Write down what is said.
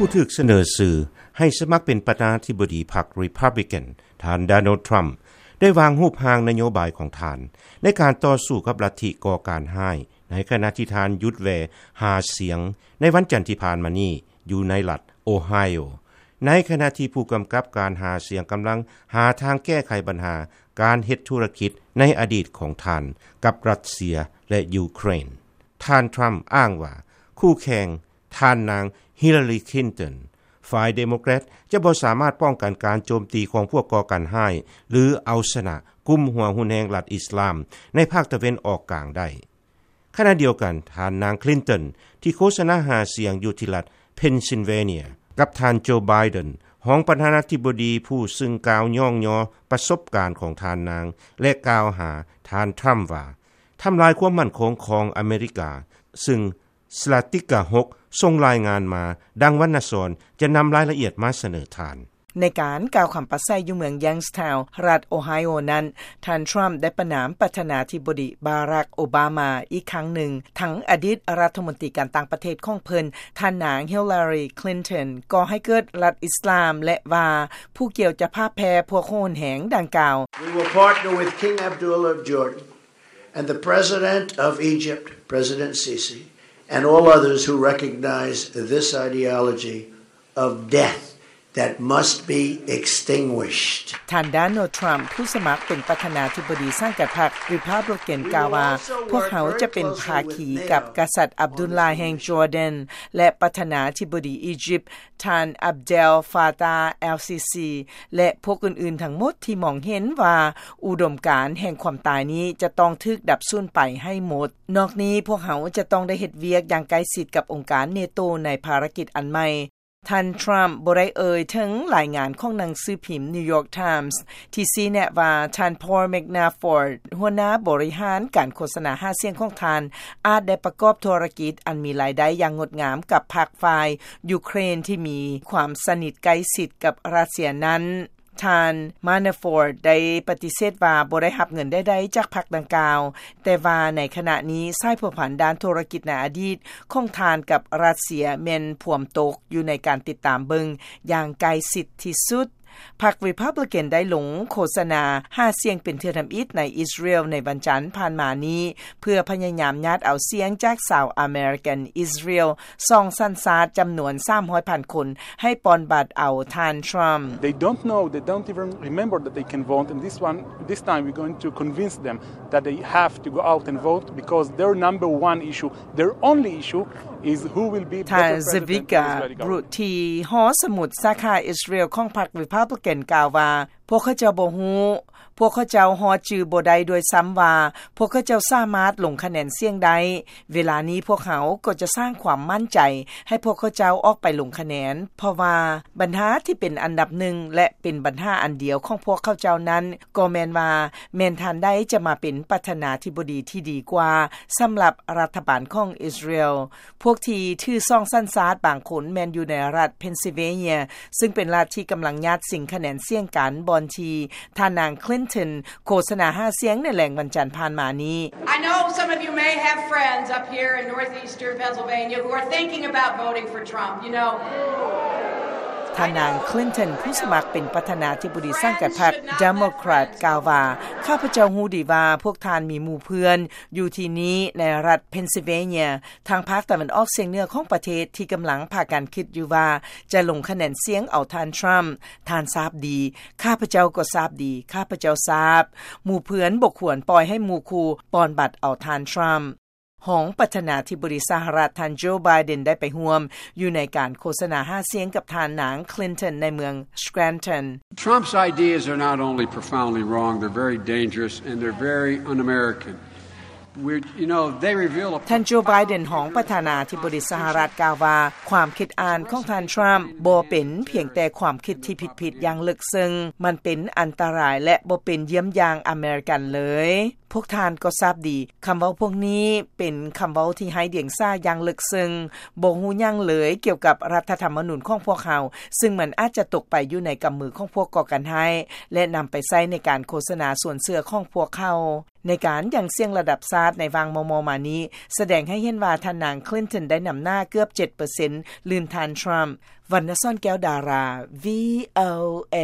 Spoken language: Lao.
ຜູ້ຖືກສະເໜີຊື່ໃຫ້ສະໝັກເປັນປະທານາທິບໍດີພັກ Republican ທ່ານ Donald Trump ໄດ້ວາງຮູບຮ່າງນະໂຍບາຍຂອງທ່ານ ໃນການຕໍ່ສູ້ກັບລັດທິກໍ່ການຮ້າຍ ໃນຂະນະທີ່ທ່ານຢຸດແວ່ຫາສຽງ ໃນວັນຈັນທີ່ຜ່ານມານີ້ ຢູ່ໃນລັດ Ohio ໃນຂະນະທີ່ຜູ້ກຳກັບການຫາສຽງກຳລັງຫາທາງແກ້ໄຂບັນຫາການເຮັດທຸລະກິດໃນອະດີດຂອງທ່ານກັບຣັດເຊຍ ແລະ ຢູເຄຣນ. ທ່ານ Trump ອ້າງວ່າຄູ່ແຂ່ງ ທ່ານນາງ Hillary Clinton ຝ່າຍ Democrat ຈະບໍ່ສາມາດປ້ອງກັນການໂຈມຕີຂອງພວກກໍ່ການຮ້າຍ ຫຼື ເອົາຊະນະກຸ່ມຫົວຮຸນແຮງລັດອິສລາມໃນພາກຕາເວັນອອກກາງໄດ້. ຂະນະດຽວກັນ ທ່ານນາງ Clinton ທີ່ໂຄສະນາຫາສຽງຢູ່ທີ່ລັດ Pennsylvania ກັບທ່ານ Joe Biden ຮອງປະທານາທິບໍດີຜູ້ຊຶ່ງກ່າວຍ້ອງຍໍປະສົບການຂອງທ່ານນາງ ແລະ ກ່າວຫາທ່ານ Trump ວ່າ ທຳລາຍຄວາມໝັ້ນຄົງຂອງອາເມລິກາ, ຊຶ່ງ Slatika ຫົກ ສົ່ງລາຍງານມາ ດັ່ງວັນນະສອນຈະນຳລາຍລະອຽດມາສະເໜີທ່ານ. ໃນການກ່າວຄຳປາໄສຢູ່ເມືອງ Youngstown ລັດ Ohio ນັ້ນ, ທ່ານ Trump ໄດ້ປະນາມປະທານາທິບໍດີ Barack Obama ອີກຄັ້ງໜຶ່ງ, ທັງອະດີດລັດຖະມົນຕີການຕ່າງປະເທດຂອງເພິ່ນ, ທ່ານນາງ Hillary Clinton ກໍ່ໃຫ້ເກີດລັດອິສລາມ ແລະ ວ່າຜູ້ກ່ຽວຈະພາກແຜ່ພວກໂຫດແຮງດັ່ງກ່າວ. We will partner with King Abdullah of Jordan and the President of Egypt, President Sisi, and all others who recognize this ideology of death that must be extinguished. ທ່ານ Donald Trump ຜູ້ສະໝັກເປັນປະທານາທິບໍດີສັງກັດພັກ Republican ກ່າວວ່າ, ພວກເຮົາຈະເປັນພາຄີກັບກະສັດ Abdullah ແຫ່ງ Jordan ແລະ ປະທານາທິບໍດີອີຢິບ ທ່ານ Abdel Fattah el-Sisi ແລະ ພວກອື່ນໆທັງໝົດທີ່ມອງເຫັນວ່າອຸດົມການແຫ່ງຄວາມຕາຍນີ້ຈະຕ້ອງຖືກດັບສູນໄປໃຫ້ໝົດ. ນອກນີ້, ພວກເຮົາຈະຕ້ອງໄດ້ເຮັດວຽກຢ່າງໃກ້ຊິດກັບອົງການ NATO ໃນພາລະກິດອັນໃໝ່. ທ່ານ Trump ບໍ່ໄດ້ເອີ່ຍເຖິງລາຍງານຂອງໜັງສືພິມ New York Times ທີ່ຊີ້ແນະວ່າ ທ່ານ Paul Manafort ຫົວໜ້າບໍລິຫານການໂຄສະນາຫາສຽງຂອງທ່ານ ອາດໄດ້ປະກອບທຸລະກິດອັນມີລາຍໄດ້ຢ່າງງົດງາມກັບພັກຝ່າຍຢູເຄຣນທີ່ມີຄວາມສະໜິດໃກ້ຊິດກັບຣັດເຊຍນັ້ນ. ທ່ານ Manafort ໄດ້ປະຕິເສດວ່າບໍ່ໄດ້ຮັບເງິນໃດໆຈາກພັກດັ່ງກ່າວ, ແຕ່ວ່າໃນຂະນະນີ້ສາຍພົວພັນດ້ານທຸລະກິດໃນອະດີດຂອງທ່ານກັບຣັດເຊຍແມ່ນພວມຕົກຢູ່ໃນການຕິດຕາມເບິ່ງຢ່າງໃກ້ຊິດທີ່ສຸດ. ພັກ Republican ໄດ້ລົງໂຄສະນາຫາສຽງເປັນເທື່ອທຳອິດໃນອິດສະຣາເອວໃນວັນຈັນຜ່ານມານີ້ ເພື່ອພະຍາຍາມຍາດເອົາສຽງຈາກຊາວອາເມລິກັນອິດສະຣາເອວ ສອງສັນຊາດຈຳນວນສາມຮ້ອຍພັນຄົນ ໃຫ້ປ່ອນບັດເອົາທ່ານ Trump. They don't know, they don't even remember that they can vote, and this one, this time we're going to convince them that they have to go out and vote because their number one issue, their only issue is who will be better president of the Israeli government. ທ່ານ Zvika Brutti ຫໍສະໝຸດສາຂາອິດສະຣາເອວຂອງພັກ Republican ກ່າວວ່າ, ພວກເຂົາເຈົ້າບໍ່ຮູ້, ພວກເຂົາເຈົ້າຮອດຈື່ບໍ່ໄດ້ດ້ວຍຊ້ຳວ່າ ພວກເຂົາເຈົ້າສາມາດລົງຄະແນນສຽງໄດ້. ເວລານີ້ພວກເຮົາກໍຈະສ້າງຄວາມໝັ້ນໃຈໃຫ້ພວກເຂົາເຈົ້າອອກໄປລົງຄະແນນ, ເພາະວ່າບັນຫາທີ່ເປັນອັນດັບໜຶ່ງ ແລະ ເປັນບັນຫາອັນດຽວຂອງພວກເຂົາເຈົ້ານັ້ນ ກໍແມ່ນວ່າ ແມ່ນທ່ານໃດຈະມາເປັນປະທານາທິບໍດີທີ່ດີກວ່າສຳລັບລັດຖະບານຂອງອິດສະຣາເອວ. ພວກທີ່ຖືສອງສັນຊາດບາງຄົນແມ່ນຢູ່ໃນລັດ Pennsylvania ຊຶ່ງເປັນລັດທີ່ກຳລັງຍາດຊິງຄະແນນສຽງກັນ ບ່ອນທີ່ທ່ານນາງ Clinton ໂຄສະນາຫາສຽງໃນແລງວັນຈັນຜ່ານມານີ້. I know some of you may have friends up here in northeastern Pennsylvania who are thinking about voting for Trump, you know. ທ່ານນາງ Clinton ຜູ້ສະໝັກເປັນປະທານາທິບໍດີສັງກັດພັກ Democrat ກ່າວວ່າ, ຂ້າພະເຈົ້າຮູ້ດີວ່າພວກທ່ານມີໝູ່ເພື່ອນຢູ່ທີ່ນີ້ໃນລັດ Pennsylvania ທາງພາກຕາເວັນອອກສຽງເໜືອຂອງປະເທດທີ່ກຳລັງພາກັນຄິດຢູ່ວ່າຈະລົງຄະແນນສຽງເອົາທ່ານ Trump. ທ່ານຊາບດີ, ຂ້າພະເຈົ້າກໍຊາບດີ, ຂ້າພະເຈົ້າຊາບ. ໝູ່ເພື່ອນບໍ່ຄວນປ່ອຍໃຫ້ໝູ່ຄູ່ປ່ອນບັດເອົາທ່ານ Trump. ຮອງປະທານາທິບໍດີສະຫະລັດ ທ່ານ Joe Biden ໄດ້ໄປຮ່ວມຢູ່ໃນການໂຄສະນາຫາສຽງກັບທ່ານນາງ Clinton ໃນເມືອງ Scranton. Trump's ideas are not only profoundly wrong, they're very dangerous and they're very un-American. ທ່ານ Joe Biden ຮອງປະທານາທິບໍດີສະຫະລັດກ່າວວ່າ, ຄວາມຄິດອ່ານຂອງທ່ານ Trump ບໍ່ເປັນພຽງແຕ່ຄວາມຄິດທີ່ຜິດໆຢ່າງເລິກເຊິ່ງ, ມັນເປັນອັນຕະລາຍ ແລະ ບໍ່ເປັນຢ້ຽມຢ່າງອາເມລິກັນເລີຍ. ພວກທ່ານກໍຊາບດີ ຄຳເວົ້າພວກນີ້ເປັນຄຳເວົ້າທີ່ໄຮ້ດຽງສາຢ່າງເລິກເຊິ່ງ, ບໍ່ຮູ້ຫຍັງເລີຍກ່ຽວກັບລັດຖະທຳມະນູນຂອງພວກເຮົາ, ຊຶ່ງມັນອາດຈະຕົກໄປຢູ່ໃນກຳມືຂອງພວກກໍ່ການຮ້າຍ ແລະ ນຳໄປໃຊ້ໃນການໂຄສະນາຊວນເຊື່ອຂອງພວກເຂົາ. ໃນການຫຍັງສຽງລະດັບຊາດໃນຫວ່າງມໍ່ໆມານີ້ ສະແດງໃຫ້ເຫັນວ່າທ່ານນາງ Clinton ໄດ້ນຳໜ້າເກືອບເຈັດເປີເຊັນ ລື່ນທ່ານ Trump. ວັນນະສອນ ແກ້ວດາລາ VOA.